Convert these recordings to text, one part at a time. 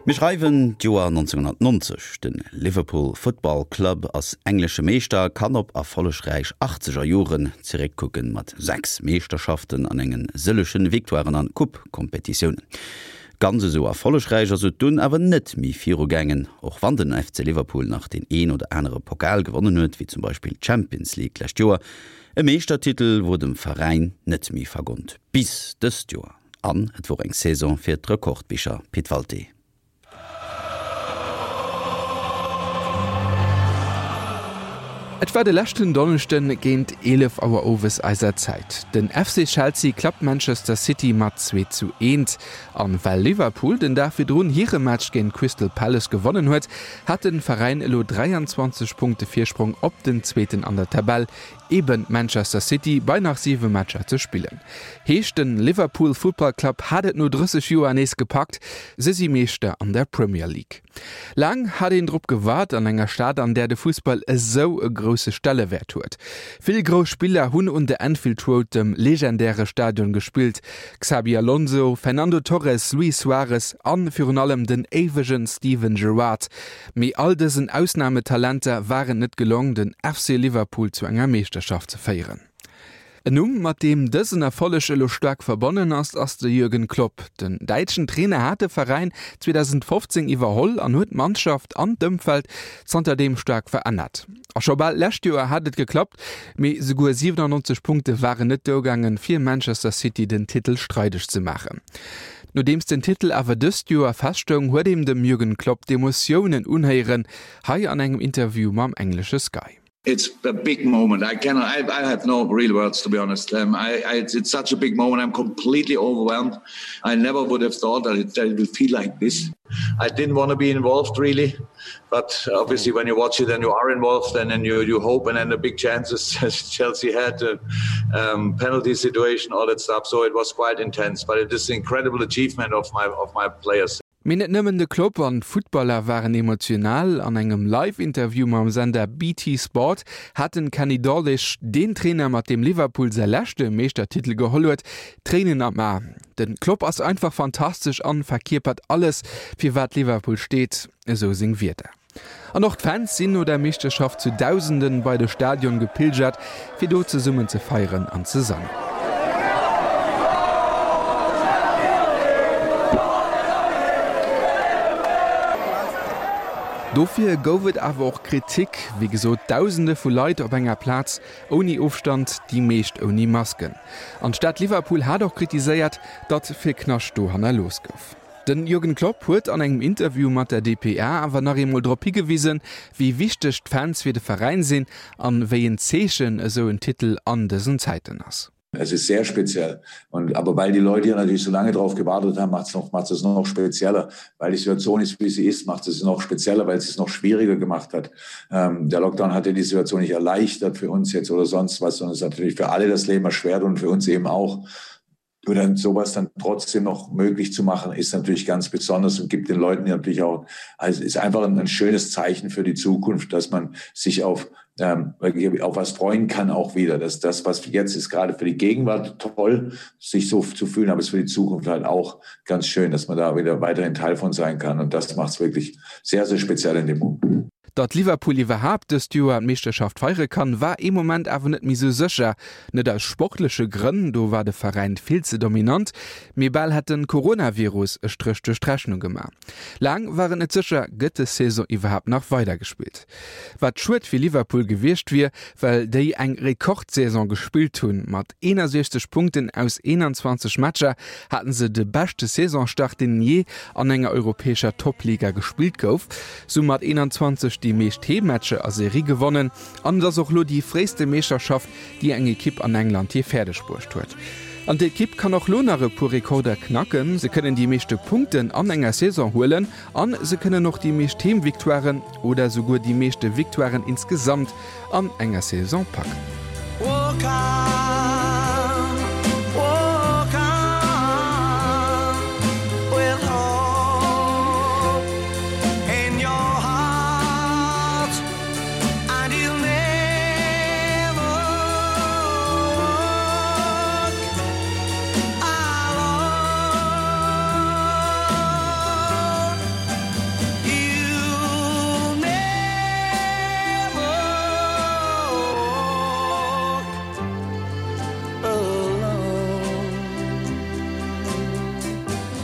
Mir schreiwen d'Joer 1990, De Liverpool Football Club ass englesche Meeschter a kann op erfollegräich achtzeger Joren zeréckkucken, mat 6 Meeschterschaften an enge sëlleche Victoiren an Coupe-Kompetitiounen. Ganz esou erfollegräich ass et dunn awer net méi virugaangen, och wann den FC Liverpool nach deen een oder anere Pokal gewonnen huet, wéi zum Beispill d'Champions League d'lescht Joer. E Meeschtertitel wor dem Veräin net méi vergonnt, bis dëst Joer. An et wor eng Saison fir d'Rekordbicher, Pit Walté. Et war de leschten Donneschden géint 11 Auer owes eiser Zäit. Den FC Chelsea klappt Manchester City mat 2 zu 1. An well Liverpool den Dag virdrun hire Match géint Crystal Palace gewonnen huet, hat den Veräin elo 23 Punkte Virsprong op den Zweeten an der Tabell, Eben Manchester City bei nach 7 Matcher ze spillen. Heescht den Liverpool Football Club hat et no 30 Joer nees gepackt, se si Meeschter an der Premier League. Laang hat een drop gewaart an enger Stad an där de Fussball esou e grousse Stellewäert huet. Vill grouss Spiller hunn un der Anfield Road, dem legendäre Stadion gespillt, Xabi Alonso, Fernando Torres, Luis Suarez an virun allem den éiwegen Steven Gerrard. Mee all dësen Ausnametalenter war et net gelong, den FC Liverpool zu enger Meeschterschaft ze féieren. En Numm, mat deem dësen Erfolleg elo staark verbonnen ass, ass de Jürgen Klopp. Den däitschen Trainer hat de Veräin 2015 iwwerholl an huet d'Mannschaft an d'Ëmfeld zanterdeem staark verännert. A scho bal d'lescht Joer hat et geklappt, mee souguer 97 Punkte waren net duergaangen, fir Manchester City den Titel streideg ze maachen. Nodeems den Titel awer dëst Joer feststoung, huet een dem Jürgen Klopp d'Emotiounen unhéieren, hei an engem Interview mam englesche Sky. It's a big moment. I cannot, I, I have no real words to be honest. Um, I, I, it's, it's such a big moment. I'm completely overwhelmed. I never would have thought that it, that it would feel like this. I didn't want to be involved really, but obviously when you watch it and you are involved and then you, you hope and then the big chances Chelsea had uh, um, penalty situation, all that stuff. So it was quite intense, but it is an incredible achievement of my, of my players. Mee net nëmmen de Klopp an d'Futtballer waren emotional. An engem Live-Interview mam Sender BT Sport hat den Kenny Dalglish, deen Trainer mat deem Liverpool säi leschte Meeschtertitel geholl huet, Tréinen am A. Den Klopp ass einfach fantastesch an verkierpert alles, fir wat Liverpool steet, esou seng Wierder. An och d'Fans sinn no der Meeschterschaft zu Dausenden bei de Stadion gepilgert, fir do zesummen ze feieren an ze sangen. Dofir gouf et awer och Kritik. Wéi gesot, Dausende vu Leit op enger Plaz, ouni Ofstand, déi meescht ouni Masken. An d'Stad Liverpool hat och kritiséiert, datt vill Knascht do hannerlooss gouf. Den Jürgen Klopp huet an engem Interview mat der dpa awer nach eemol drop higewisen, wéi wichteg d'Fans fir de Veräin sinn an wéi en Zeechen esou en Titel an dësen Zäiten ass. Es ist sehr speziell und aber weil die Leute hier natürlich so lange drauf gewartet haben, macht es noch, macht es noch spezieller. Weil die Situation ist, wie sie ist, macht es noch spezieller, weil es es noch schwieriger gemacht hat. Ähm, der Lockdown hat ja die Situation nicht erleichtert für uns jetzt oder sonst was, sondern es hat natürlich für alle das Leben erschwert und für uns eben auch. Nur dann sowas dann trotzdem noch möglich zu machen, ist natürlich ganz besonders und gibt den Leuten natürlich auch, also ist einfach ein, ein schönes Zeichen für die Zukunft, dass man sich auf, ähm, auf was freuen kann auch wieder. Dass das, was jetzt ist, gerade für die Gegenwart toll, sich so zu fühlen, aber es ist für die Zukunft halt auch ganz schön, dass man da wieder weiterhin Teil von sein kann. Und das macht es wirklich sehr, sehr speziell in dem Moment. Datt Liverpool iwwerhaapt dëst Joer d'Meeschterschaft feiere kann, war ee Moment awer net méi sou sécher. Net aus sportleche Grënn, do war de Veräin vill ze dominant, mee bal hätt de Coronavirus e Stréch duerch d'Rechnung gemaach. Laang war et net sécher, gëtt des Saison iwwerhaapt nach weidergespillt? Wat schued fir Liverpool gewiescht wier, well déi eng Rekordsaison gespillt hunn. Mat 61 Punkten aus 21 Matcher haten se de beschte Saisonstart, deen jee an enger europäescher Toppliga gespillt gouf. Se hu mat 21 déi meescht Heemmatcher a Serie gewonnen an et ass och lo déi fréiste Meeschterschaft, déi eng Ekipp an England jee fäerdeg bruecht huet. An d'Ekipp kann och lo nach e puer Rekorder knacken, se kënnen déi meeschte Punkten an enger Saison huelen an se kënnen och déi meescht Heemvictoiren oder souguer déi meeschte Victoiren insgesamt an enger Saison packen.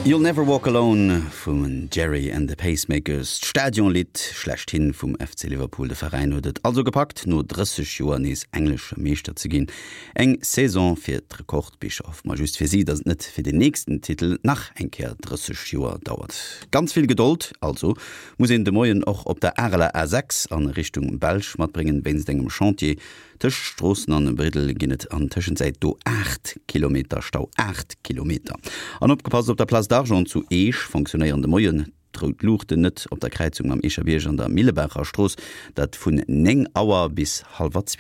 You'll Never Walk Alone vum Gerry and the Pacemakers, d'Stadionlidd schlechthin vum FC Liverpool. De Veräin huet et also gepackt, no 30 Joer nees englesche Meeschter ze ginn. Eng Saison fir d'Rekordbicher. Hoffe mer just fir si, datt et net fir den nächsten Titel nach eng Kéier 30 Joer dauert. Ganz vill Gedold also muss een de Moien och op der Areler A6 a Richtung Belsch matbréngen, wéinst engem Chantier. Tëscht Stroossen an Briddel ginn et an Tëschenzäit do 8 Kilometer Stau. 8 Kilometer! An opgepasst, Op der Place d'Argent zu Eech fonctionnéieren de Moien d'rout Luuchten net op der Kräizung mam Eecher Bierg an der Millebaacher Strooss, dat vun 9 Auer bis hallwer 12.